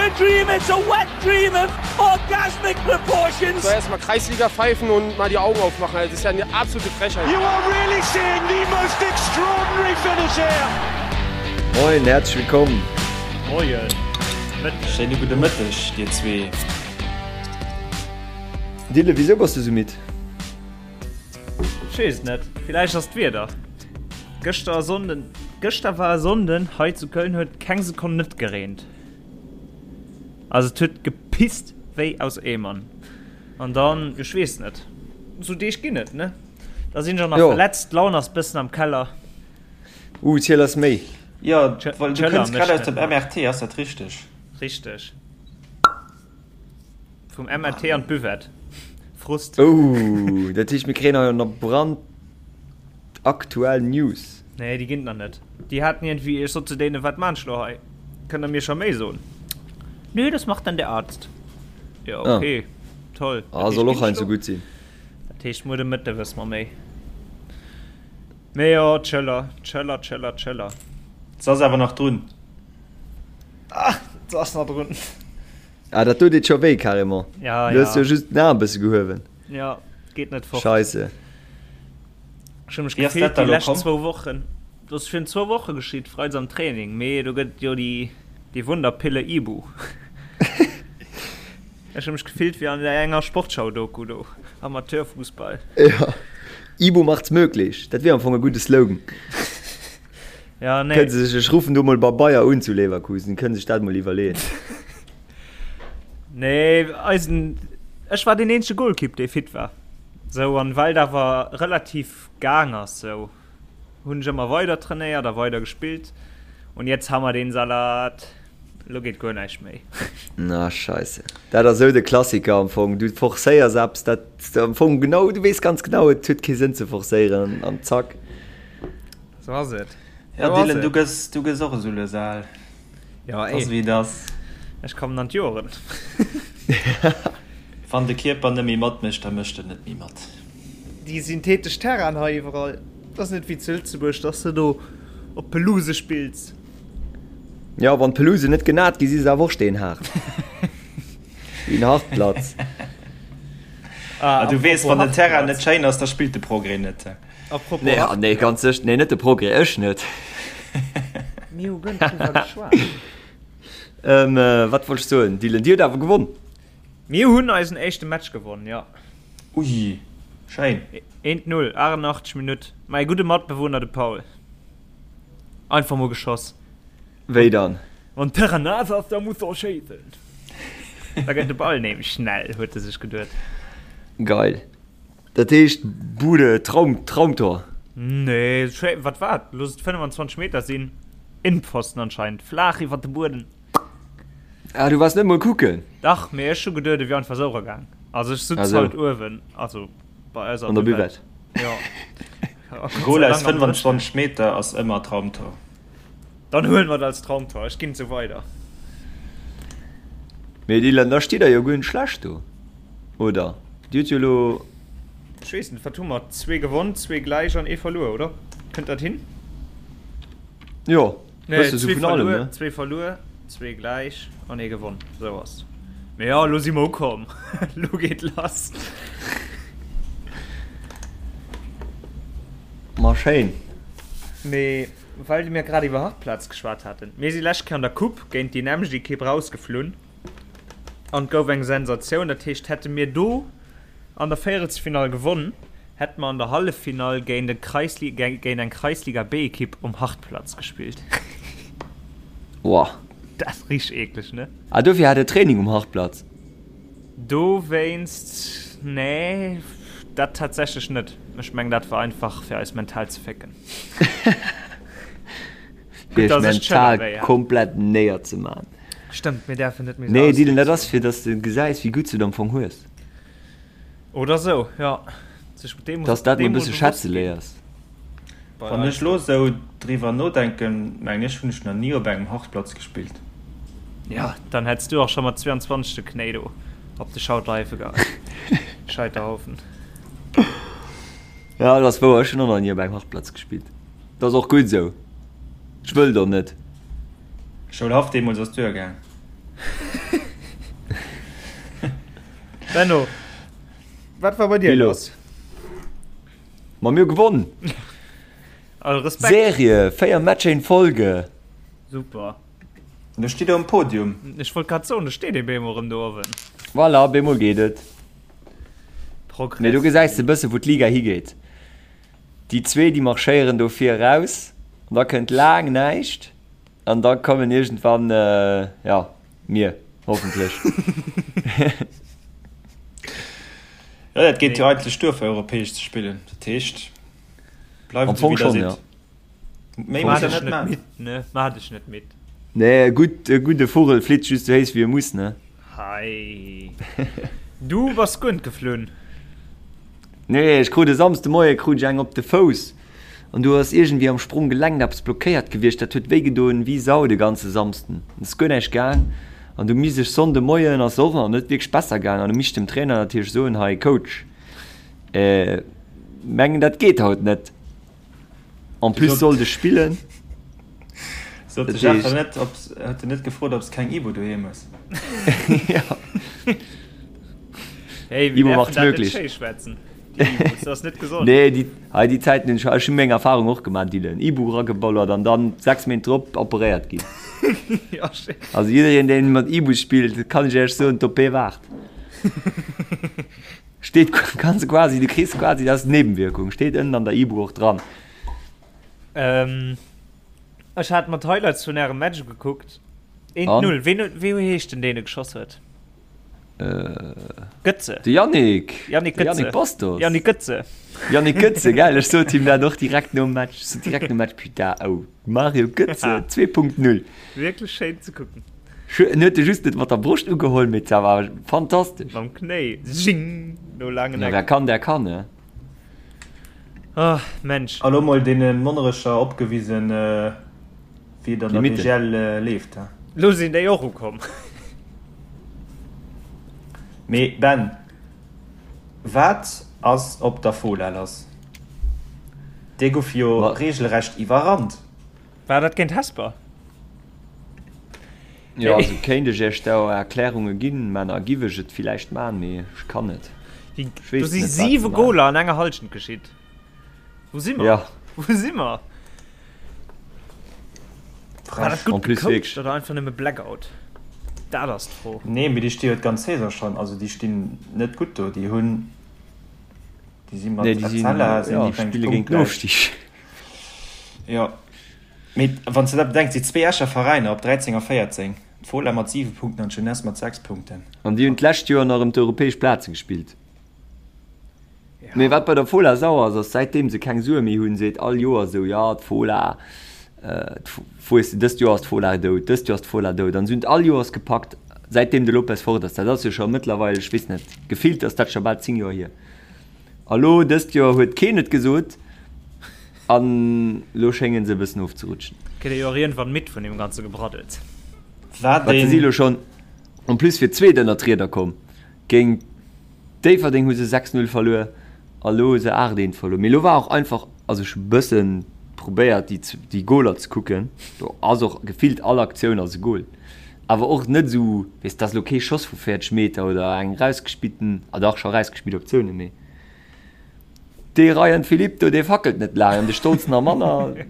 a dream, it's a wet dream of orgasmic proportions. So erstmal Kreisliga pfeifen und mal die Augen aufmachen. Das ist ja eine absolute Frechheit. You are really seeing the most extraordinary finish here. Moin, herzlich willkommen. Moien. Mëtteg. Schéine gudde Mëtteg, dir zwee. Dylan, wisou bass du sou midd? Ech weess et net, villäicht ass d'Wieder. Gëschter Sonnden, gëschter war e Sonnden hei zu Köln huet keng Sekonn net gereent. Also et huet gepisst wéi aus Eemern. An dann, ech weess net, sou Deeg ginn et, ne? Da sinn ech och nach Jo. verletzt, d'Laun ass bëssen am Keller. Uh, ziel eis méi. Jo, well du D'Schëller kënns grad mécht aus net dem mat. MRT, ass dat richteg? Richteg. Vum MRT an d'Buvette. Frust. Oh, dat heescht mir kréien hei nach brandaktuell News. Nee, déi ginn et nach net. Déi haten iergendwéi, ech sot zu deenen, wat maan ech lo hei? Kënnt der mir scho méi soen? Nö, das macht dann der Arzt. Jo, okay, toll. Ah, soll och heiansdo gutt sinn. Dat heescht, muer de Mëtte wësse mer méi. Mee jo, d'Schëller, d'Schëller, d'Schëller, d'Schëller. Se ass awer nach drun. Ah, se ass nach drun. Ah, dat do deet scho wéi, carrément. Ja, Du hues ja. jo just den Aarm e bësse gehuewen. Ja, geet net fort. Scheisse. Ech hu mech Wéi ass gefillt dat da déi lo lescht komm? zwou Wochen. Dat ass virun zwou Woche geschitt, freides am Training. Mee do gëtt et jo déi, déi Wunderpille Ibu. Ech hu mech gefillt wéi an enger Sportschau-Doku do, Amateurfußball. Ja, Ibu macht's möglich. Dat wier am Fong e gudde Slogan. Ja, nee. Kënne se sech, ech ruffen do mol bei Bayer un zu Leverkusen, kënne sech dat mol iwwerleeën. Nee, eisen, ech war deen eenzege Golkipp, dee fit war. Sou, an well et awer relativ gaang ass, sou hunn ech ëmmer weider trainéiert a weider gespillt. Und jetzt ha mer den Salat. Lo geet guer näischt méi. Na scheisse. Dat ass sou de Klassiker am Fong. Du forcéiers eppes, dat am Fong genau, du weess ganz genau, et huet kee Sënn ze forcéieren an zack. Sou ass et. Ja, Sou ass Dylan, du et. gëss, du gëss och esou lues al. Ja, Ass ey. wéi et ass. Ech kommen an d'Joren. Wann de Kierper net méi matmécht, da mécht en net méi mat. Déi synthetesch Terrainen hei iwwerall, dat ass net wéi zu Lëtzebuerg, dass de do op Pelouse spills. Ja, wann d'Pelouse net genat gi si se awer och steenhaart. Wéi en Hartplatz. Ah, Ah, du weess, apropos wann den Terrain net Hartplatz. schéin ass, da spillt de Progrès net. Apropos Nee, ah, nee, ganz sécher, nee, net de Progrès, ech net. Mir hu guer net driwwer geschwat. Ähm, wat wollt ech soen? Dylan, Dir hutt awer gewonn. Mir hunn eisen éischte Match gewonn, jo. Ui, schéin. Eent Null, 88 Minutt. Mäi gudde Matbewunner, de Paul. Einfach mol geschoss. Wéi dann? Wann d'Terrain naass ass, da muss de och schéissen. Da gëtt de Ball nämlech schnell, huet e sech geduet. Geil. Dat heescht Bude, Traum, Traumtor. Nee, schéi, wat war et? Looss et 25 Meter sinn. Innpfosten anscheinend, flaach iwwer de Bueden. Ah, du waars net mol kucken? Dach, mee ech hu geduet, et wier einfach esou eragaang. Also ech sutz Also. halt uewen, also bei eis An der Buvette. Jo. Goal aus 25 Meter ass ëmmer Traumtor. Dann huelen mer et als Traumtor. Ech ginn et sou weider. Mee Dylan, da steet der jo guer net schlecht do, oder? Dir hutt jo elo. Ech weess net, wat hu mer? Zwee gewonn, zwee gläich an ee verluer, oder? Kënnt dat hin? Jo, Nee, bësse sou zwee vun allem, verluer, ne? zwee verluer, zwee gläich an ee gewonn. Sou ass. Mee jo, elo si mer ukomm. Elo geet lass. Ma schéin. Mee well mir grad iwwer Hartplatz geschwat haten, mir si lescht Kéier an der Coupe géint déi nämmlecht Ekipp rausgeflunn an et gouf eng Sensatioun. Dat heescht, hätte mir do an der Véierelsfinall gewonn, hätte mer an der Halleffinall géint e Kreisli géint eng Kreisliga B-Ekipp um Hartplatz gespillt. Woah. Dat ass richteg eekleg, ne? Ah, dofir hat e Training um Hartplatz? Dowéinst, nee, dat tatsächlech net. Ech mengen, dat war einfach fir eis mental ze fécken. Fir iech mental komplett néier ze man. Stëmmt, mir däerfen net méi sou Nee, Dylan, dat ass ausdrécken. fir dass de gesäis, wéi gutt s du et am Fong hues. Oder sou, jo. Sech deem Dass dat mol e deem mol bësse bewosst schätze ginn. léiers. Bei Wann eis ech lo sou driwwer nodenken, mengen ech hunn ech nach ni op engem Hartplatz gespillt. Ja, dann hätts du och scho mat 22 de Knéi do op de Schauterhaife geheit. Scheiterhaufen. Ja, dat ass wouer, ech hunn och nach ni op engem Hartplatz gespillt. Dat ass och gutt esou. Ech wëll do net. Schoulhaff deemools ass duergaang. Benno, wat war bei dir los? Ma mir gewonn. All Respekt. Serie, 4 Matcher in Folge. Super. Do steet der um Podium. Ech wollt grad soen, do steet ee bemol erëm do uewen. Voilà, bemol geet et. Progress. Mee do gesäis de bësse wou d'Liga higeet. Déi zwee déi marschéieren do vir eraus an da kënnt laang näischt an da kommen iergendwann, jo, mir, hoffentlech. Jo, dat geet jo eigentlech duer fir europäesch ze spillen. Dat heescht, bleift Am esou Fong wéi der schonn, jo. sidd. Méi Maach muss der dech net net man. midd, ne? Maach dech net midd. Nee, e gutt, e gudde Vugel flitt just esou héich wéi e muss, ne? Hei. Du bass guer net geflunn. Nee, ech krut e Samsde Moie krut ech eng op de Fouss an do ass iergendwéi am Spronggelenk eppes blockéiert gewiescht. Dat huet wéi gedoen wéi Sau de ganze Samsden. Et ass guer näischt gaang an du misst ech Sonnde Moien ass och nach net wierklech besser gaang an du misst dem Trainer natierlech soen, hei Coach, mengen dat geet haut net. En plus sollt ech spillen. Sot de Jeff net, ob, huet en net gefrot, ob s keng Ibu doheem hues? Ja. Hey, Ibu macht's möglich. Das ass net gesond. Nee, déi, hei déi Zäiten hunn ech, ech hunn meng Erfahrung och gemaach, Dylan. Ibu erageballert an dann 6 Méint drop operéiert ginn. Ja, schéin. Also jiddereen, deen mat Ibu spillt, kann ech Iech soen, d'OP waart. Steet kanns quasi, du kriss quasi, dat ass Nebenwirkung, steet ënnen an der Ibu och dran. Ähm, ech hat mer d'Highlights vun ärem Match gekuckt. 1-0. Ween, wéi heescht den, deen e geschoss huet? Äh, Götze. De Yannick. Yannick De Götze. Yannick Bastos. Yannick Götze. Yannick Götze, geil, ech sot him dat och direkt nom Match. Ech sot direkt nom Match, putain, oh, Mario Götze 2.0. Wierklech schéin ze kucken. En huet e just net mat der Broscht ugeholl, mee dat war fantastesch. Mam Knéi, zing, no laangen Ja, Eck. wer kann, der kann, ne? Ah, Mensch. A lo mol deene Monnerecher opgewisen, wéi et an der Limite. BGL leeft, he? Lo sinn déi och ukomm. Mee Ben, wat ass op der Fola lass? Déi gouf jo Ma. regelrecht iwwerrannt. War dat géint Hesper? Jo, also kéint ech iech do Erklärunge ginn, Männer, giff ech et villäicht man, mee ech kann net. Déi, Ech do weess si net, wat se 7 man. Goler an enger Halschent geschitt. Wou si mer? Ja. Wou si mer? War dat En gutt plus gecoacht wierklech. oder einfach nëmme Blackout? Dat ass d'Fro. Nee, mee déi sti jo d'ganz Saison schonn, also déi stinn net gutt do. Déi hunn, déi si mat Nee, déi sinn, Etzella sinn ja, déi, meng ech, spille géint den punktgläich. Ofstig. Jo, mee wann s de dat bedenks, déi zwee Escher Veräiner op 13 a 14, d'Fola mat 7 Punkten an d'Jeunesse mat 6 Punkten. An déi hunn d'lescht Joer nach ëm d'europäesch Plaze gespillt. Mee wat bei der Fola sauer ass, ass säitdeem se keng Sue méi hunn, seet all Joer esou, jo d'Fola, weess de, dëst Joer ass d'Fola dout, dëst Joer ass d'Fola dout. An se hunn et all Joers gepackt, säitdeem de Lopez fort ass. Dat ass jo scho mëttlerweil, ech weess net, gefillt ass dat scho bal 10 Joer hier. A lo dëst Joer huet keen et gesot an lo schéngen se e bëssen ofzerutschen. Kritt ee jo och iergendwann midd vun deem ganze Gebraddels. Wat Wat se si een. lo schonn en plus fir d'zweet ënnert d'Rieder komm. Géint Déifferdeng hu se 6, 0 verluer a lo hu se 8, 1 verluer. Mee lo war och einfach, also ech hu bëssen probéiert déi déi Goler ze kucken, do ass och gefillt all Aktioun ass e Gol. Awer och net esou, weess, dat ass elo kee Schoss vu 40 Meter oder eng rausgespillten, ah dach, scho rausgespillt Aktioune, mee dee Ryan Philippe do, dee fackelt net laang an de Stolz nach manner.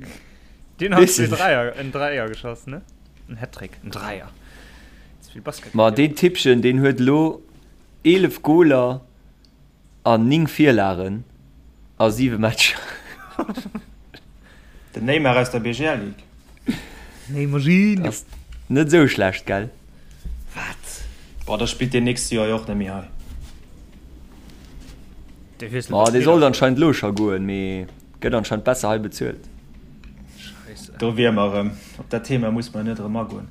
Deen hat zwee Dräier, en Dräier geschoss, ne? En Hattrick, en Dräier. Ze vill Basket Ma gespillt. deen Tippchen, deen huet elo 11 Goler an 9 Virlagen a 7 Matcher. Den Neymar aus der BGL Ligue. Neymarino. Ass net esou schlecht, gell? Wat? Boah, da spillt deen nächst Joer jo och net méi hei. Dee wiesselt Ma de dee Spiller. sollt anscheinend elo scho goen, mee gëtt anscheinend besser hei bezuelt. Scheisse. Do wier mer erëm. Op dat Thema muss mer net erëm agoen.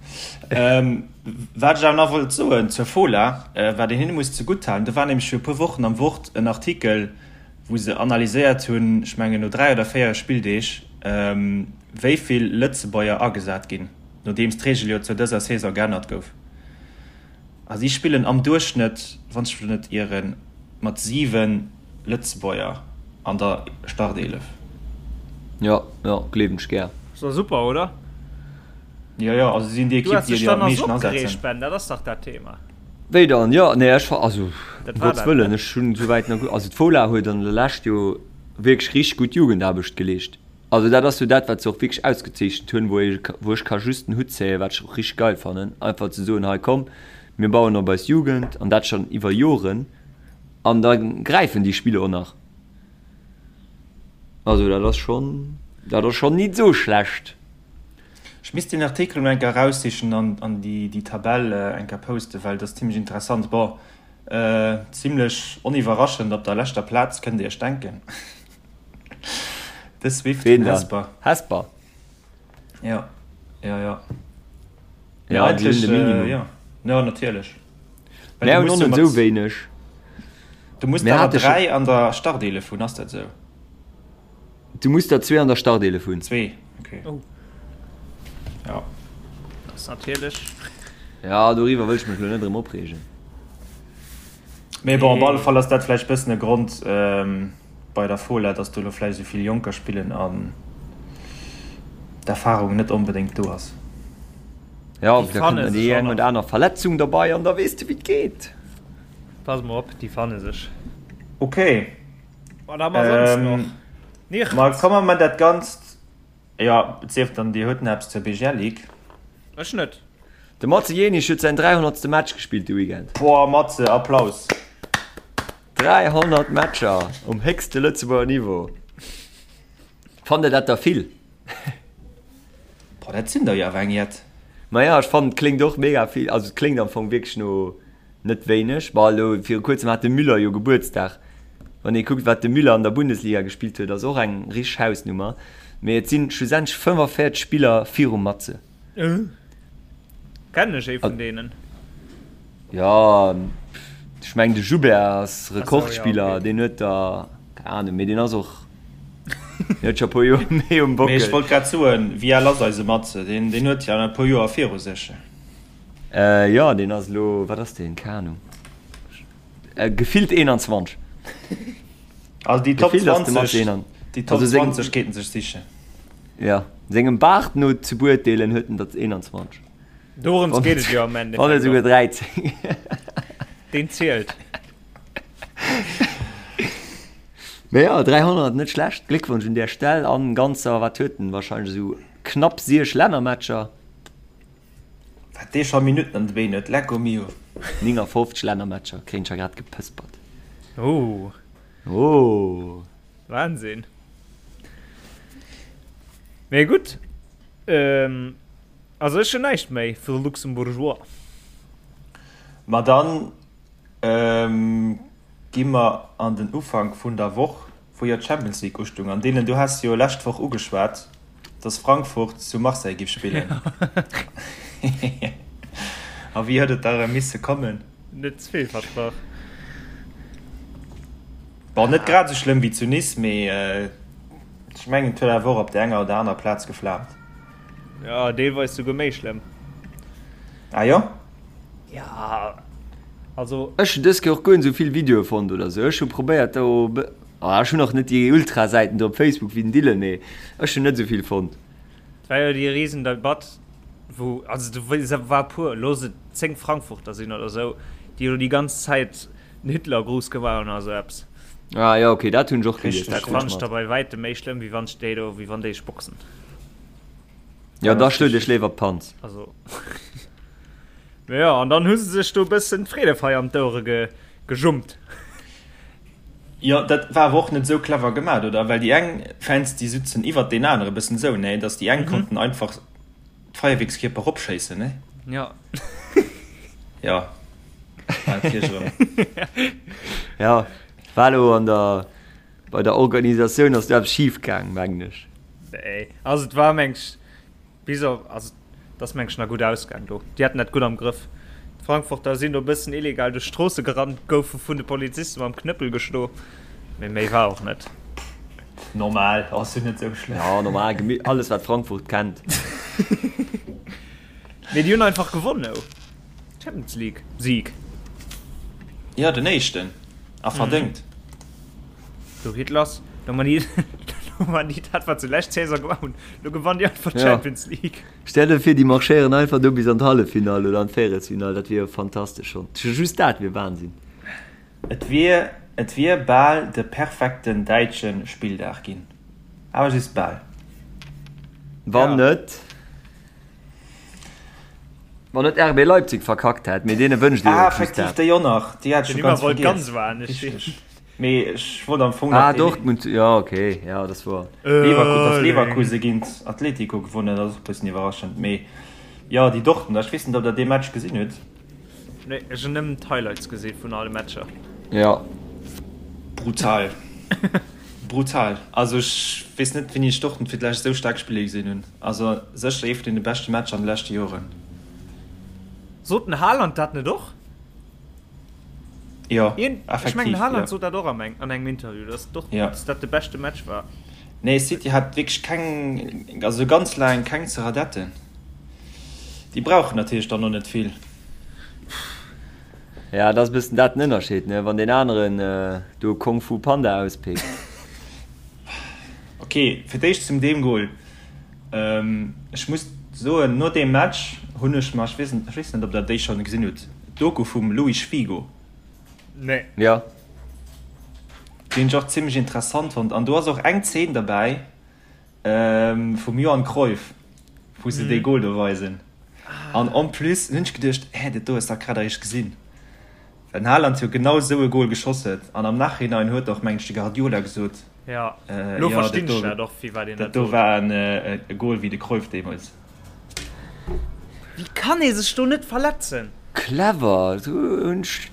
Wat ech awer nach wollt soen zur Fola, wat een hinne muss zegutt halen, do war nämlech fir e puer Wochen am Wort en Artikel, wou se analyséiert hunn, ech mengen no 3 oder 4 Spilldeeg, wéi vill Lëtzebuerger agesat ginn, nodeems d'Reegel jo zou dëser Saison geännert gouf. A si spillen am Duerchschnëtt, wann ech mech net ieren, mat 7 Lëtzebuerger an der Starteelef. Jo, jo, gleewen ech gär. Ass doch super, oder? Jo, jo, also si sinn déi Du Ekipp, has déi dech déi am dann nach meeschten so opgereegt, asetzen. Ben, dat ass dach dat Thema. Wéi dann? Jo, nee, ech, also, um Gottes Wëllen, ech hunn esouwäit nach, also d'Fola huet an der Lescht jo wierklech richteg gutt Jugendaarbecht geleescht. Also dat ass jo dat, wat se och wierklech ausgezeechent hunn, wou ee, wou ech ka just den Hutt zéien, wat ech och richteg geil fannen, einfach ze soen, hei komm, mir bauen op eis Jugend an dat schonn iwwer Joren an da gräifen déi Spiller och nach. Also dat ass schonn, dat ass schonn nit esou schlecht. Ech misst deen Artikel mol eng Kéier eraussichen an an déi déi Tabell eng Kéier posten, well dat ass zimlech interessant. Bon, zimlech oniwwerraschend op der leschter Plaz, kënnt Dir Iech denken. De Swift vun Hesper. Hesper? Ja, ja, ja. Ja, déi hunn de Minimum. Ja, ja natierlech. Mir hunn och net esou wéineg. Du muss der 3 an der Starteelef hunn, ass dat esou? Du muss der zwee an der Starteelef hunn. Zwee, okay. Oh. Ja. Dat ass natierlech. Ja, doriwwer wëll ech mech elo net erëm opreegen. Mee bon, op alle Fall ass dat vläicht bëssen e Grond bei der Fola, dass do elo vläicht esou vill Jonker spillen an d'Erfarung net onbedéngt do ass. Ja, da kënnt nach déi eng oder aner Verletzung derbei an da weess de wéi et geet. Pass mol op, déi fanne sech. Okay. Wat hu mer soss nach? Nichts. Ma komme mer dat Ganzt, jo, et sief dann Dir hutt nach eppes zur BGL Ligue. Ech net. De Matze Jenisch huet säin 300. Match gespillt de Weekend. Boah, Matze, Applaus! 300 Matcher um héchste Lëtzebuerger Niveau. Fannt der dat der vill? Boah, dat sinn der jo awer eng jett. Maja, ech fannen et kléngt och mega vill, also et kléngt am Fong wierklech no net wéineg. Bon, elo viru kuerzem hat de Müller jo Gebuertsdag. Wann ee kuckt, wat de Müller an der Bundesliga gespillt huet, ass och eng richteg Hausnummer. Mee et sinn schlussendlech 45 Spiller virum Matze. Kennen ech ee vun deenen? Jo, ech mengen de Joubert ass Rekordspiller, deen huet der, keng Ahnung, mee deen ass och, deen huet scho e puer Joer méi um Bockel. Mee ech wollt grad soen, wéi al ass eise Matze? Deen, deen huet jo nach e puer Joer viru sech. Jo, deen ass elo, wat ass deen, keng Ahnung, gefillt 21. Also déi Top 20, déi Top 20 kéinten sech sichen. Jo, sengem Baart no ze beurteelen huet en der 21. Dorëms geet et jo am Endeffekt. Wann net esouguer 13. Deen zielt. Mee jo, 300, net schlecht. Gléckwonsch un där Stell. An ganzer, wat huet en, wahrscheinlech esou knapp 6 Lännermatcher. Wat dee scho Minutten an de Been huet, lecko mio. 59 Lännermatcher, kréien ech ja grad gepëspert. Oh. Oh. Wahnsinn. Mee gutt. Ähm, also ech hunn näischt méi fir de Luxembourgeois. Ma dann ähm, gi mer an den Ufank vun der Woch, wou jo d'Champions League ustung. An deenen, du has jo lescht Woch ugeschwat, dass Frankfurt zu Marseille giff spillen. A wéi huet et da erëm misse kommen? Net ze vill versprach. Bon, net grad esou schlëmm wéi zu Nice, mee ech mengen et huet awer och op der enger oder aner Plaz geflaamt. Jo, deelweis souguer méi schlëmm. Ah jo? Ja, also. Ech hunn dës Kéier och guer net esou vill Videoe fonnt oder esou. Ech hu probéiert do, ah ech hunn och net déi Ultra-Säiten do op Facebook wéi den Dylan, mee ech hunn net esou vill fonnt. Et war jo déi Risendebatt, wou, also do war e puer, looss et 10 Frankfurter sinn oder esou, déi elo déi ganz Zäit den Hitlergruß gemaach hunn oder sou eppes. Ah jo, okay, dat hunn ech och gelies, dat fannen ech da bei wäitem méi schlëmm, wéi wann ech déi do, wéi wann déi ech boxen. Jo, da schlot iech léiwer d'Panz. Also, mee jo, an dann hu se sech do e bëssen d'Freedefeier an d'Ouere ge, gejummt. Jo, dat war awer och net esou clever gemat, oder? Well déi eng Fans, déi sutzen iwwert deen anere bëssen esou, nee? Datt déi eng konnten einfach d'Feierwierkskierper eropschéissen, nee? Jo. Jo. Ja, war lo an der bei der Organisatioun ass do eppes schief gaang, mengen ech. Nee, also et war meng ech bis op, also et ass meng ech nach gutt ausgaang do. Déi haten dat gutt am Grëff. D'Frankfurter sinn do e bëssen illegal duerch d'Stroosse gerannt, goufe vun de Poliziste mam Knëppel geschlo, mee méi war och net. Normal, ass jo net sou schlëmm. Ja, normal, alles wat Frankfurt kennt. Mee déi hunn einfach gewonnen, oh. Champions League Sieg. Jo, den éischten. A verdéngt. Do geet lass. Do man déi. Lo man déi dat wat se lescht Saison gemaach hunn, lo gewannen déi einfach d'Champions League. Stell der vir déi marschéieren einfach do bis an d'Halleffinall oder an d'Véierelsfinall, dat wier jo fantastesch schonn. Just dat wier Wahnsinn. Et wier et wier bal de perfekten däitsche Spilldag ginn, awer just bal. Wann net wann net RB Leipzig verkackt hätt, mee deene wënscht ee jo Ah, och just effektiv, dat. déi och nach, déi hat ech Den scho Immer ganz wollt vergiess. ganz anescht sinn. Richteg. Mee ech wollt am Fong nach Ah, dee Dortmund, jo okay, jo dat ass wouer. Leverku dass Erling. Leverkuse géint Atletico gewonnen huet, ass och e bëssen iwwerraschend. Mee jo, déi Dortmunder, ech weess net, ob der dee Match gesinn hutt. Nee, ech hunn nëmmen d'Highlights gesi vun alle Matcher. Jo. Brutal. Brutal. Also ech weess net wéini ech Dortmund fir d'lescht esou staark spille gesinn hunn. Also sécher ee vun deene beschte Matcher an de leschte Joren. Sot den Haaland dat net och? Jo, Ech mengen effektiv, den Haaland jo. sot dat och am eng an engem Interview, dass Jo. Dortmund dat de beschte Match war. Nee, City hat wierklech keng, also ganz laang keng ze radetten. Déi brauchen natierlech dann och net vill. Ja, dat ass e bëssen dat den Ënnerscheed, ne? Wann deen aneren do Kung Fu Panda auspickt. Ok, fir d'éischt zum deem Goal. Ech muss soen, no deem Match hunn ech mer, ech weess net, ech weess net, ob der déi schonn gesinn hutt, d'Doku vum Luis Figo. Nee. Ja. Déi hunn ech och zimmlech interessant fonnt. An do ass och eng Zeen derbäi vum Johan Cruyff, wou se dee Goal do weisen. An en plus hunn ech geduecht, hä, dat do hues de dach grad eréischt gesinn. Well den Haaland jo genau esou e Goal geschoss huet. An am Nachhinein huet och, mengen ech, de Guardiola gesot, Jo, lo verstinn ech dat och, firwat een dat dat do sot. war e Goal wéi de Cruyff deemools. Wéi kann ee sech do net verletzen? Clever, do hunn ech,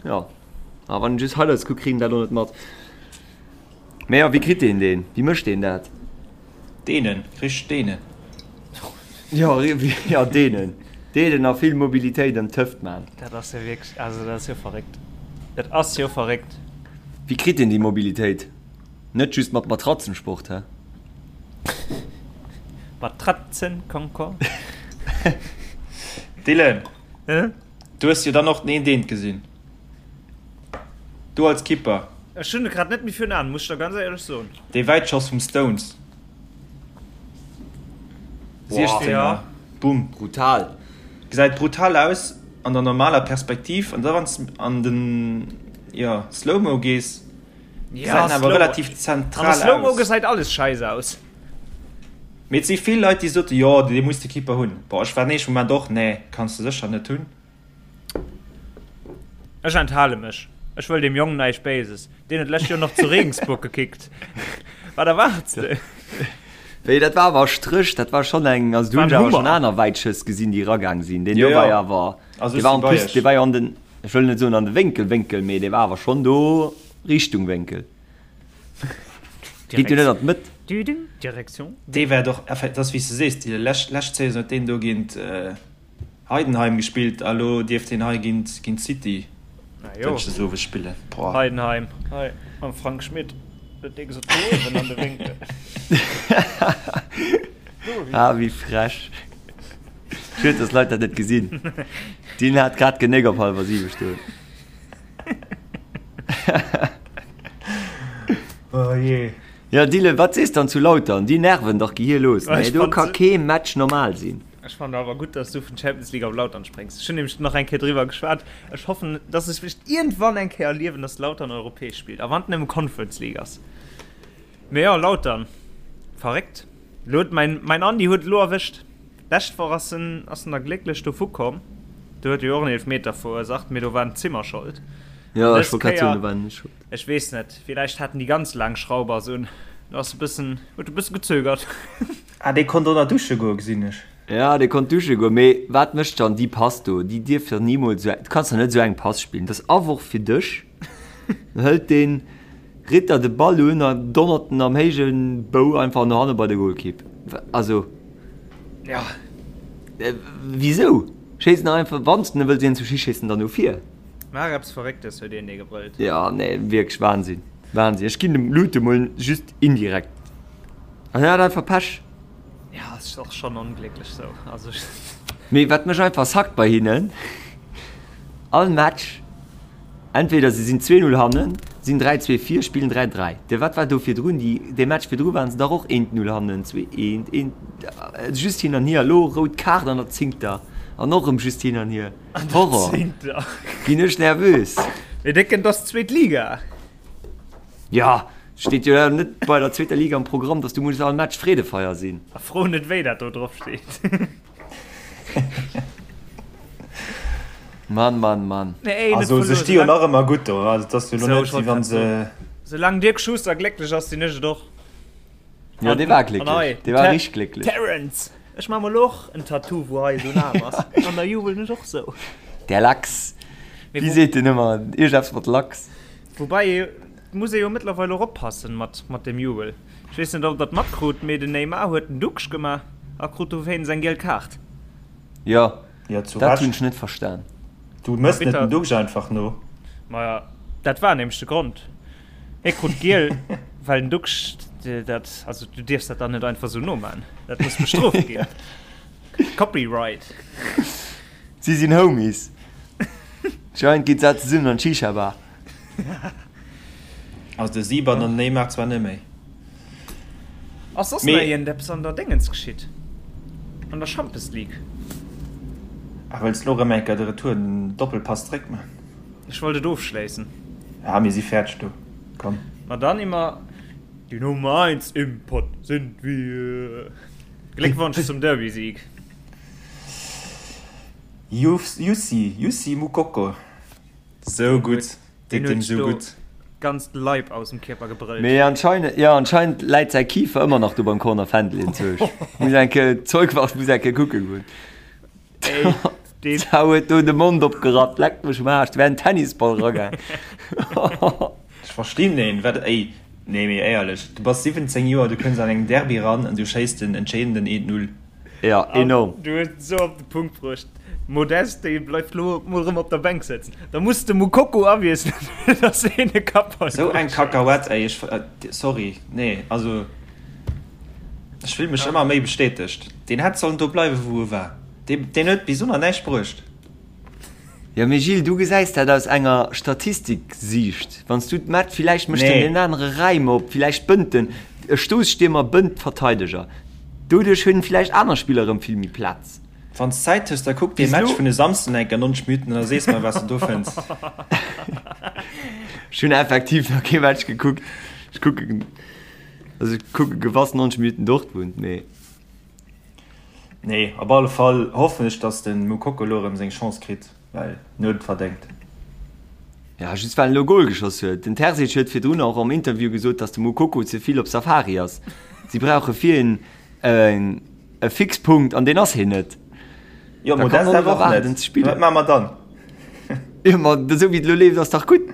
jo, a wann een just Highlights kuckt, kritt een dat och net mat. Mee jo, wéi kritt een deen? Wéi mécht deen dat? Deenen, richteg deenen. Jo, jo, deenen. Deenen a vill Mobilitéit ëm d'Hëft man. Dat ass jo wierklech, also dat ass jo verréckt. Dat ass jo verréckt. Wéi kritt een déi Mobilitéit? Net just mat Matratzensport, hä? Matratzenconcours? Dylan, Hä? du hues jo dann och den Eent Eent gesinn. Du als Kipper. Ech hunn e grad net méi virun Aen, muss ech der ganz éierlech soen. Dee Wäitschoss vum Stones. 16er, Ja. Bumm. Brutal. Gesäit brutal aus an der normaler Perspektiv an da wann s an den, jo, Slow-Mo gees, Ja, gesäit en awer relativ An der zentral Slow-Mo aus. gesäit alles scheiss aus. Mee et si vill Leit déi sote jo dee muss de Keeper hunn. Boah ech war den éischte Moment och nee kanns de sécher net hunn. Ech enthale mech. Ech wëll deem Jong näischt Béises. Deen huet d'lescht Joer nach zu Regensburg gekickt. Wat erwaarts de? Wéi, dat war awer Stréch, dat war schonn eng, also do hunn ech awer schonn aner Wäitschëss gesinn, déi eragaang sinn. Deen do war jo awer, dee war en plus, dee war jo an den, ech wëll net soen an de Wénkel, Wénkel, mee dee war awer schonn do Richtung Wénkel. Geet jo net an d'Mëtt. Direction. Dee war doch, dat ass wéi s de sees, déi lescht, lescht Saison huet deen do géint Heidenheim gespillt a lo dierft hien hei géint géint City dënschdes owes spillen. Boah. Heidenheim hei mam Frank Schmidt huet dee gesot, do uewen an de Wénkel. Ah wéi frech. Schued dass Leit dat net gesinn. Deen hat grad genéck op hallwer 7 stoen. Oh jee. Jo Dylan, wat sees dann zu Lautern? Déi nerven dach gehierlos, nee? Do ka kee Match normal sinn. Ech fannen awer gutt, dass du vun Champions League op Lautern spréngs. Ech hunn nämlech nach eng Kéier driwwer geschwat. Ech hoffen, dass ech vläicht iergendwann eng Kéier erliewen, dass Lautern europäesch spillt, a wann et nëmme Conference League ass. Mee jo, Lautern, verréckt. Elo huet mäin, mäin Andi huet et elo erwëscht. Lescht Woch ass en, ass en da glécklech dovu komm. Do huet e jo och en Eelefmeter verursaacht, mee do war den Zimmer schold. Jo, An ech dës wollt grad soen, Kéier, do war en net schold. ech weess net, villäicht haten déi ganz laang Schraubers un. Do ass e bëssen, huet e bësse gezögert. Ah, dee konnt och nach dusche goen, gesinn ech. Ja, dee konnt dusche goen, mee wat mécht dann déi Pass do? Déi dierf jo nimools esou, du kanns jo net esou eng Pass spillen, dat ass Aworf fir dech. Dann hëlt dee Ritter de Ball un a donnert en am héije Bou einfach no hanne bei de Golkipp. Also, Ja. wisou? Schéiss en einfach, wann s de wëlls een zu schéissen, dann no vir. Maach eppes Verrécktes, huet een dee gebrëllt. Ja, nee, wierklech Wahnsinn, Wahnsinn. Ech ginn dem Lute mol just indirekt. An hien hat einfach Pech. Ja, ass och schon onglécklech sou. Also Mee wat mech einfach sackt bei hinnen, all Match, entweder se sinn 2, 0 hannen, Sinn 3, 2 vir, spillen 3, 3. De wat war do virdrun? Déi, dee Match virdru waren se dach och 1, 0 hannen, 2, 1, 1, just hin an hier. Elo rout Kaart an der zéngter an och erëm just hin an hier. Horror! Ginn ech nervös. Mee Décken, 't ass zweet Liga. Jo, steet jo net bei der zweeter Liga am Programm, dass du muss all Match Freedefeier sinn. A fro net wéi dat do drop steet. Mann, Mann, Mann. Also se sti jo nach ëmmer gutt do. Also et ass jo lo net wéi wann se. Soulaang Dirk Schuster glécklech ass, sinn ech et och. Jo, dee war glécklech. Dee war richteg glécklech. Terence, ech maa mol och en Tattoo wou hei esou en Aarm ass an da jubelen ech och sou. Der Lachs. Wéi seet deen ëmmer? Iergendeppes mat Lachs. Woubäi et muss ee jo mëttlerweil och oppassen mat mat dem Jubel. Ech weess net ob der et matkrut, mee den Neymar huet den Duxch gemaach a krut dowéinst eng giel Kaart. Jo, Jo, zu dat hunn ech net verstan. Du mëss net den Duxch einfach no. Maja, dat war nämlech de Grond. Hie krut giel, well den Duxch dat, also du dierfs dat dann net einfach sou noman. Dat muss bestrooft ginn. Copyright. Si sinn Homies. Anscheinend geet se zesummen an d'Shisha-Bar. Also de Sieber an den Neymar zwar net méi. Ass soss nach iergendeppes an der Déngens geschitt? An der Champes League? Ah, wëlls lo rëm eng Kéier de Retour, den Doppelpass zréck man? Ech wollt et ofschléissen. Ah, mir si fäerdeg do, komm. Ma dann immer die Nummer eins im Pott sind wir. Gléckwonsch zum Derby-Sieg. Jussi, Jussi Moukoko. Sou gutt, deet deem sou gutt. Ganzt Leib aus dem Kierper gebrëllt. Mee anscheinend, jo anscheinend läit säi Kifer ëmmer nach do beim Corner Fändel enzwousch. Muss eng Kéier, d'Zeugwacht muss eng Kéier kucke goen. Ey, D'Sau huet do de Mond opgerappt, leck mech um Aarsch, do wär en Tennisball eragaang. Ech verstinn een, wat, ey, nee mee éierlech, du bass 17 Joer, du kënns an engem Derby ran an du schéiss den entscheedenden 1, 0. Ja, enorm. Du hues et esou op de Punkt bruecht. Modeste, dee bleift lo mol erëm op der Bänk sëtzen. Da muss de Moukoko awiesselen, fir dass hien e Kappball Sou eng Kakauett, ey, ech, sorry, nee, also ech fill mech ëmmer méi bestätegt. Deen hätt sollen do bleiwen, wou e war. Deen, deen huet bis elo nach näischt bruecht. Jo mee Gilles, du gesäis dat aus enger Statistiksiicht. Wann s du d'Match, villäicht mécht en deen anere Räim op, villäicht bënnt en, e Stoosstiermer bënnt d'Verteideger. Doduerch hunn villäicht aner Spiller erëm vill méi Plaz. Wann s Zäit hues, da kuck dee Match vun e Samsden enker 90 Minuten an da sees mer wat s de do fënns. Ech hunn effektiv nach kee Match gekuckt. Ech kucken, also ech kucke gewass 90 Minuten Dortmund, mee. Nee, op alle Fall hoffen ech dass den Moukoko elo erem seng Chance kritt, well en huet et verdengt. Ja, just well en elo Goal geschoss huet. Den Terzic huet virdrun och am Interview gesot, dass de Moukoko ze vill op Safari ass. Si brauche fir en e Fixpunkt an deen ass hien net. Jo, Da kann Modeste en awer och erwaarden net. ze spillen. Wat maache mer dann? Jo, ma esou wéi et elo leeft ass dach gutt.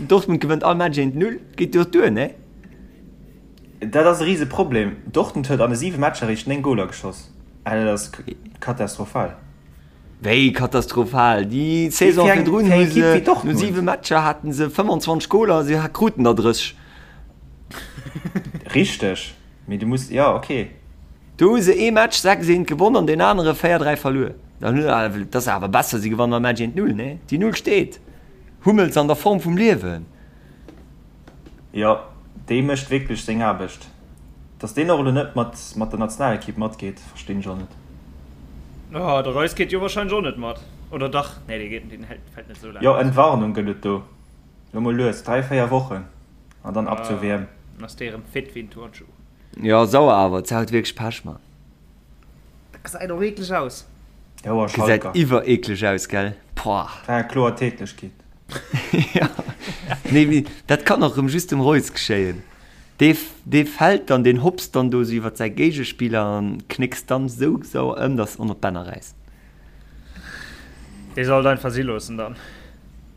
Dortmund gewënnt all Match 1-0, geet jo duer, nee? Dat ass e rise Problem. Dortmund huet an de 7 Matcher eréischt 9 Goler geschoss. Dat ass katastrophal. Wéi katastrophal? Déi Saison virdrun hu se no 7 Matcher haten se 25 Goler, se kruten der 30. Richteg, mee du muss, jo ok. Do hu se ee Match 6, 1 gewonn an deen anere 4, 3 verluer. Dat ass awer besser, si gewannen all Match 1, 0, nee? Déi Null steet. Hummels an der Form vum Liewen. Jo, dee mécht wierklech seng Aarbecht. Dass deen och elo net mat mat der Nationalekipp matgeet, verstinn ech och net. Oh, de Reus geet jo wahrscheinlech och net mat, oder dach? Nee, dee geet, deen hält, fält net esou laang Jo, aus. Entwarnung gëtt et do. Elo mol lues, 3, 4 Wochen an dann ab zur WM. Dann ass dee rëm fit wéi en Turnschuh. Jo, sauer awer, d'Sau huet wierklech Pech, Mann. Dat gesäit och eekleg aus. Jo, a Gesäit Schalker. iwwer eekleg aus, gell? Pouah. War eng kloer Tätlechkeet. Ja. Nee, mee dat kann och rëm just dem Reus geschéien. Dee, dee fält dann, deen hopst dann do sou iwwer säi Géigespiller an knéckst dann sou sauer ëm, dass en op d'Bänner räisst. Dee soll et einfach si loossen dann.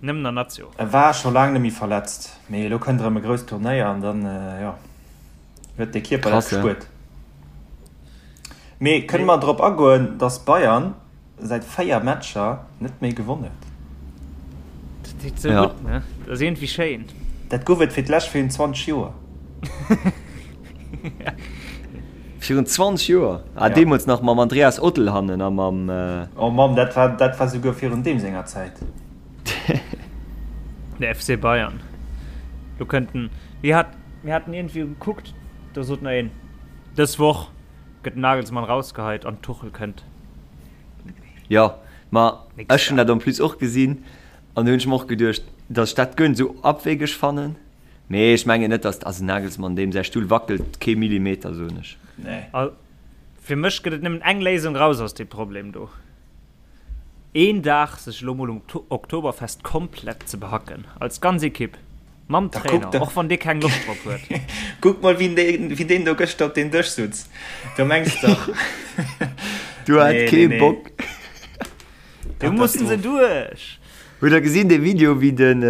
Nëmmen an Nazio. E war scho laang net méi verletzt, mee elo kënnt erëm e grousst Turnéier an dann, jo. Huet de Kierper dat Krass, ja. gespuert. Mee kënne mer drop agoen, dass Bayern säit 4 Matcher net méi gewonn huet? Dat deet sou Ja. gutt, ne? Dat ass iergendwéi schéin. Dat gouf et fir d'lescht virun 20 Joer. Virun 20 Joer? Ah, Ja. deemools nach mam Andreas Ottl hannen a mam. Oh Mamm, dat war, dat war souguer virun deem senger Zäit. De FC Bayern. Do kënnt en, mir hat, mir haten iergendwéi gekuckt, do sot nach een, dës Woch gëtt den Nagelsmann rausgeheit an Tuchel kënnt. Jo, ma ech hunn dat en plus och gesinn an do hunn ech mer och geduecht, datt ech dat guer net esou abwegeg fannen. Mee ech mengen net, datt, also Nagelsmann, deem säi Stull wackelt kee Millimeter, soen ech. Nee. Fir mech gëtt et nëmmen eng Léisung raus aus deem Problem do. Een Dag sech elo mol um Oktoberfest komplett ze behacken, als ganz Ekipp, mam Trainer, och wann dee keng Loscht drop huet. Kuck mol wien deen do gëschter op deen Dësch sutz, do mengs dach. Du hat kee Bock. Do mussen se duerch. Hutt der gesinn dee Video wéi den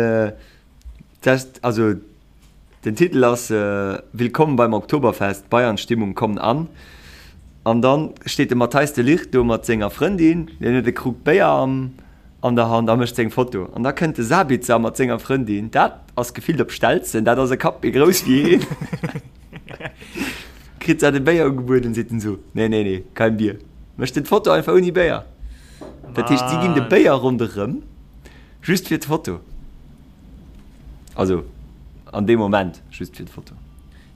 Test, also Den Titel ass Willkommen beim Oktoberfest, Bayern-Stimmung kommt an. An dann steet de Matthijs de Ligt do mat senger Frëndin, deen huet e Krug Béier am an der Hand a mécht seng Foto. An da kënnt de Sabitzer mat senger Frëndin, dat ass gefillt op Stelzen, dat ass e Kapp méi grouss wéi hien, kritt dat e Béier ugebueden, seet en esou, Nee, nee, nee, kein Bier. Mécht en d'Foto einfach ouni Béier. Dat heescht, si ginn de Béier ronderëm, just fir d'Foto. Also an deem Moment just fir d'Foto.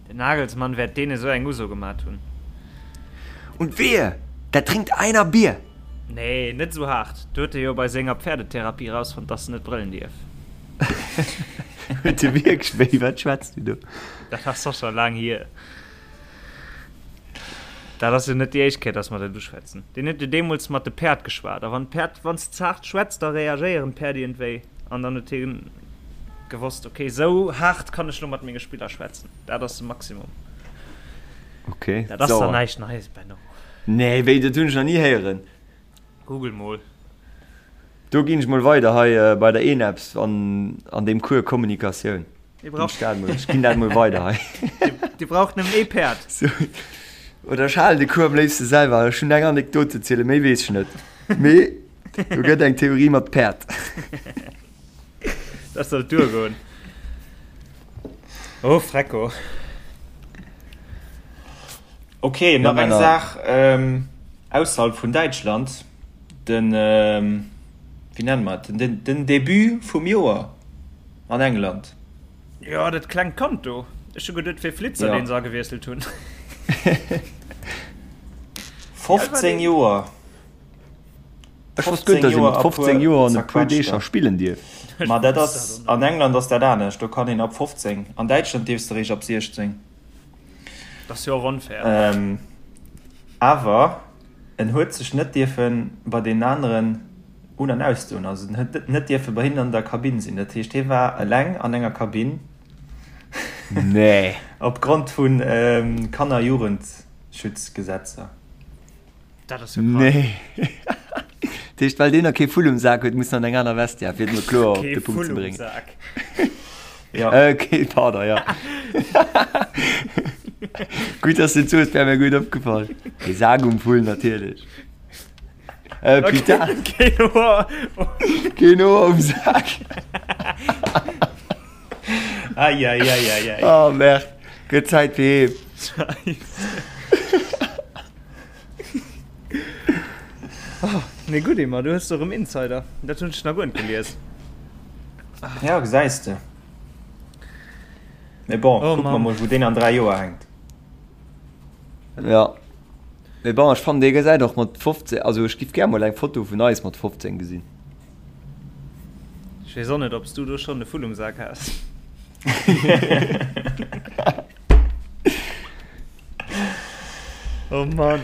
Den Nagelsmann wäert deene sou eng Uso gemat hunn. Und wehe, da trinkt einer Bier! Nee, net sou haart. Do huet e jo bei senger Pferdetherapie rausfonnt, dass en net brëllen dierf. Huet e wierklech? Wéi, wat schwätz du do? Dat ass och scho laang hier. Dat ass jo net déi éischt Kéier, dass mer dat uschwätzen. Deen huet jo deemools mat de Päerd geschwat. A wann d'Päerd, wann s de ze haart schwätz, da reagéieren d'Päerd iergendwéi. An dann huet hie gewosst, okay, esou haart kann ech lo mat menge Spiller schwätzen. Dat ass de Maximum. Okay, Dat ass dann näischt Neies, Benno. Nee, wéi, dat hunn ech nach ni héieren. Google mol. Do ginn ech mol weider hei bei der ENEPS an an deem Cours Kommunikatioun. Dir braucht dat mol, ech ginn dat mol weider hei. Dir braucht nëmmen ee Päerd. So. Oder ech halen de Cours am léifste selwer. Ech hunn eng Anekdot ze zielen, méi weess ech net. Mee do gëtt eng Theorie mat Päerd. Dat sollt duergoen. Oh, Frecko. Okay, nach eng Saach ähm, ausserhalb vun Däitschland. Den, ähm, wéi nenne mer et, den, den Debut vum Joer. An England. Jo, dat klengt Kand do. Ech hu geduet, et wier Flitzer, deen se agewiesselt hunn. 15 Joer. Ech wosst guer net, datt ee mat 15 Joer an e puer Deeg scho spillen dierf. Ma dat ass, an England ass dat anescht, do kann een ab 15. An Däitschland dierfs de eréischt ab 16. Dat ass jo och onfair. Awer en huet sech net dierfe bei deenen aneren un an ausdoen, also en huet net dierfe bei hinnen an der Kabinn sinn. Dat heescht, hie war eleng an enger Kabinn. Nee. Opgrond vu Kanner-Jugendschutzgesetzer. Dat ass jo krank. Nee. Dat heescht, well deen nach kee Vull um Sak huet, muss en an eng aner Vestiaire, fir et mol kloer op de Punkt ze bréngen. Kee Vull um Sak. Ja. Äh, kee, pardon, ja. Gutt, dass du et soos, wär mir guer net opgefall. Kee Sak um Vull, natierlech. Äh, putain. Keen Hoer. Keen Hoer um Sak. Eieieiei. Oh, merde. Gëtt Zäit fir heem. Scheiße. Oh, nee, gutt, Emma, du hues erëm Insider. Dat hunn ech nach guer net gelies. Ja, gesäis de. Mee bon, Oh, kucke mer Mann. mol, wou deen an 3 Joer hänkt. Ja. Mee bon, ech fannen dee gesäit och mat 15, also ech giff gär mol eng Foto vun eis mat 15 gesinn. Ech weess och net, ob s du do schonn e Vull um Sak has. Oh Mann.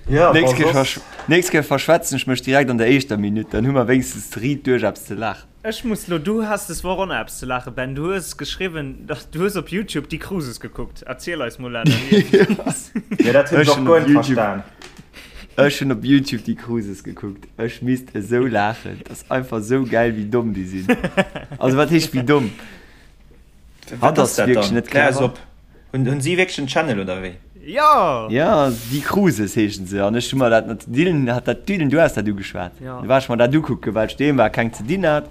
Ja, Nächst bon, Kéier soss. versch nächst Kéier verschwätzen ech mech direkt an der éischter Minutt, dann hu mer wéinstens riit duerch eppes ze laachen. Ech muss lo, du has des Woch och nach eppes ze laachen, Ben. Du hues geschriwwen, dass du hues op Youtube déi Cruises gekuckt. Erziel eis mol dat. Jo, dat hunn ech Ech och hunn guer op net Youtube, verstan. ech hunn op Youtube déi Cruises gekuckt. Ech misst esou laachen. Dat ass einfach esou gäil, wéi domm déi sinn. Also wat heescht wéi domm? Wat Hatt ass ass dat wierklech dann? net Klär eis clever. op. Hunn, hunn si wierklech en Channel oder wéi? Jo! Ja, déi Cruises heeschen se. An ech hu mer dat mat Dylan, hat dat Dylan, du has dat ugeschwat. Ja. Du war ech mer dat ukucken, well ech doheem war, keng ze dinn hat.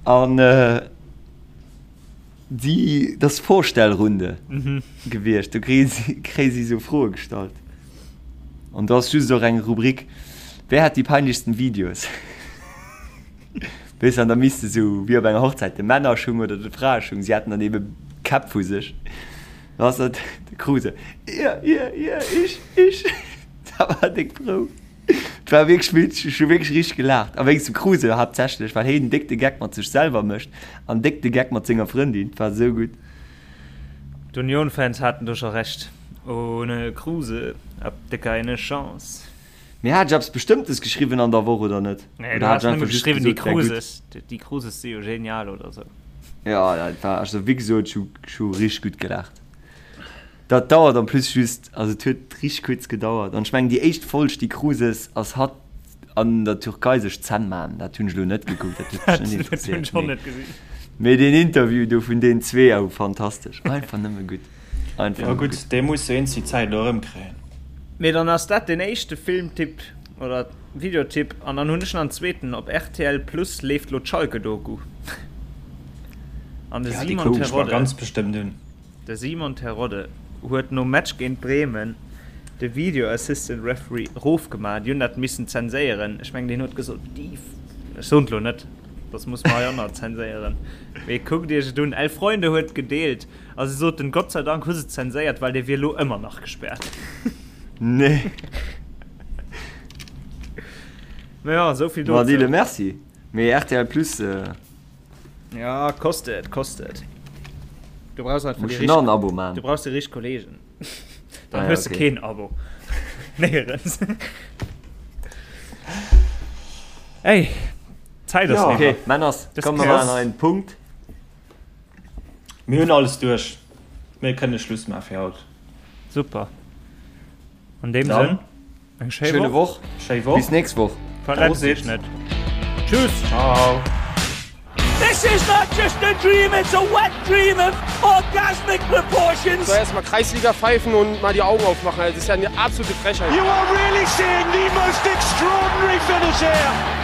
An äh, déi, dat ass Vorstellrunde Mhm. gewiescht. Do kréie si, kréie si sou Froe gestallt. An do ass just och eng Rubrik, Wer hat die peinlichsten Videos? Weess an da misst de sou wéi op enger Hochzäit de Männerschung oder de Fraeschung, si haten dann ebe Käpp vu sech. Da ass dat de Kruse, Ihr, ihr, ihr, ich, ich. Dat war déck frou. Et war wierklech witzeg, ech hu wierklech richteg gelaacht. A wéinst dem Kruse haaptsächlech, well heen déck de Geck mat sech selwer mécht an déck de Geck mat senger Frëndin. Et war sou gutt. D'Union-Fans haten do scho Recht, Ohne Kruse habt ihr keine Chance. Mee hat ech eppes Bestëmmtes geschriwwen an der Woch oder net? Nee, du has nëmme geschriwwen, déi Kruses, déi Kruses si jo genial oder sou. Jo, dat war, also wéi gesot, ech hu, ech hu richteg gutt gelaacht. Dat dauert en plus just, also et huet richteg kuerz gedauert. An ech mengen déi éischt Folg, déi Kruses, ass hatt an der Türkei sech d'Zänn man. Dat hunn ech elo net gekuckt, dat huet mech net Dat hunn ech och net gesinn. Mee deen Interview do vun deenen zwee, oh fantastesch, einfach nëmme gutt. Einfach Jo gutt, dee muss jo eens déi Zäit elo erëmkréien. Mee dann ass dat deen éischte Filmtipp oder Videotipp an dann hunn ech nach en zweeten, op rtl Plus leeft lo d'Schalke-Doku an de Ja, déi Simon kucken ech mer Terodde, ganz bestëmmt un. de Simon Terodde huet nom Match géint Bremen de Video Assistant Referee erofgemaach, déi hunn dat missen zenséieren, ech mengen deen huet gesot, déi, ech soen et lo net, dass muss mer hei och nach zenséieren, mee kuckt iech et un, El Freunde huet gedeelt. A se soten, Gott sei Dank hu se zenséiert, well dee wier lo ëmmer nach gespaart. Nee. Ma ja, esou vill Ma dozou. Dile, merci. Mee rtl Plus, Ja, kostet, kostet. Du brauchs einfach muss déi schon nach richteg, en Abo man. du brauchs déi richteg Kollegen. Dann Ah ja, hues de okay. keen Abo. Néierens. Ey, d'Zäit ass Ja. eriwwer. Okay, Männers, Dës komm, mer Kéier maachen nach een Punkt. Mir hunn alles duerch. Mir kënne Schluss maache fir haut. Super. An deem Dann Sënn, eng schéi Schöne Woch. Woch. Schéi Woch. Bis nächst Woch. Verletzt iech Prosit. net. Tschüss. Ciao. This is not just a dream, it's a wet dream of orgasmic proportions. So erstmal Kreisliga pfeifen und mal die Augen aufmachen. Das ist ja eine absolute Frechheit. You are really seeing the most extraordinary finish here.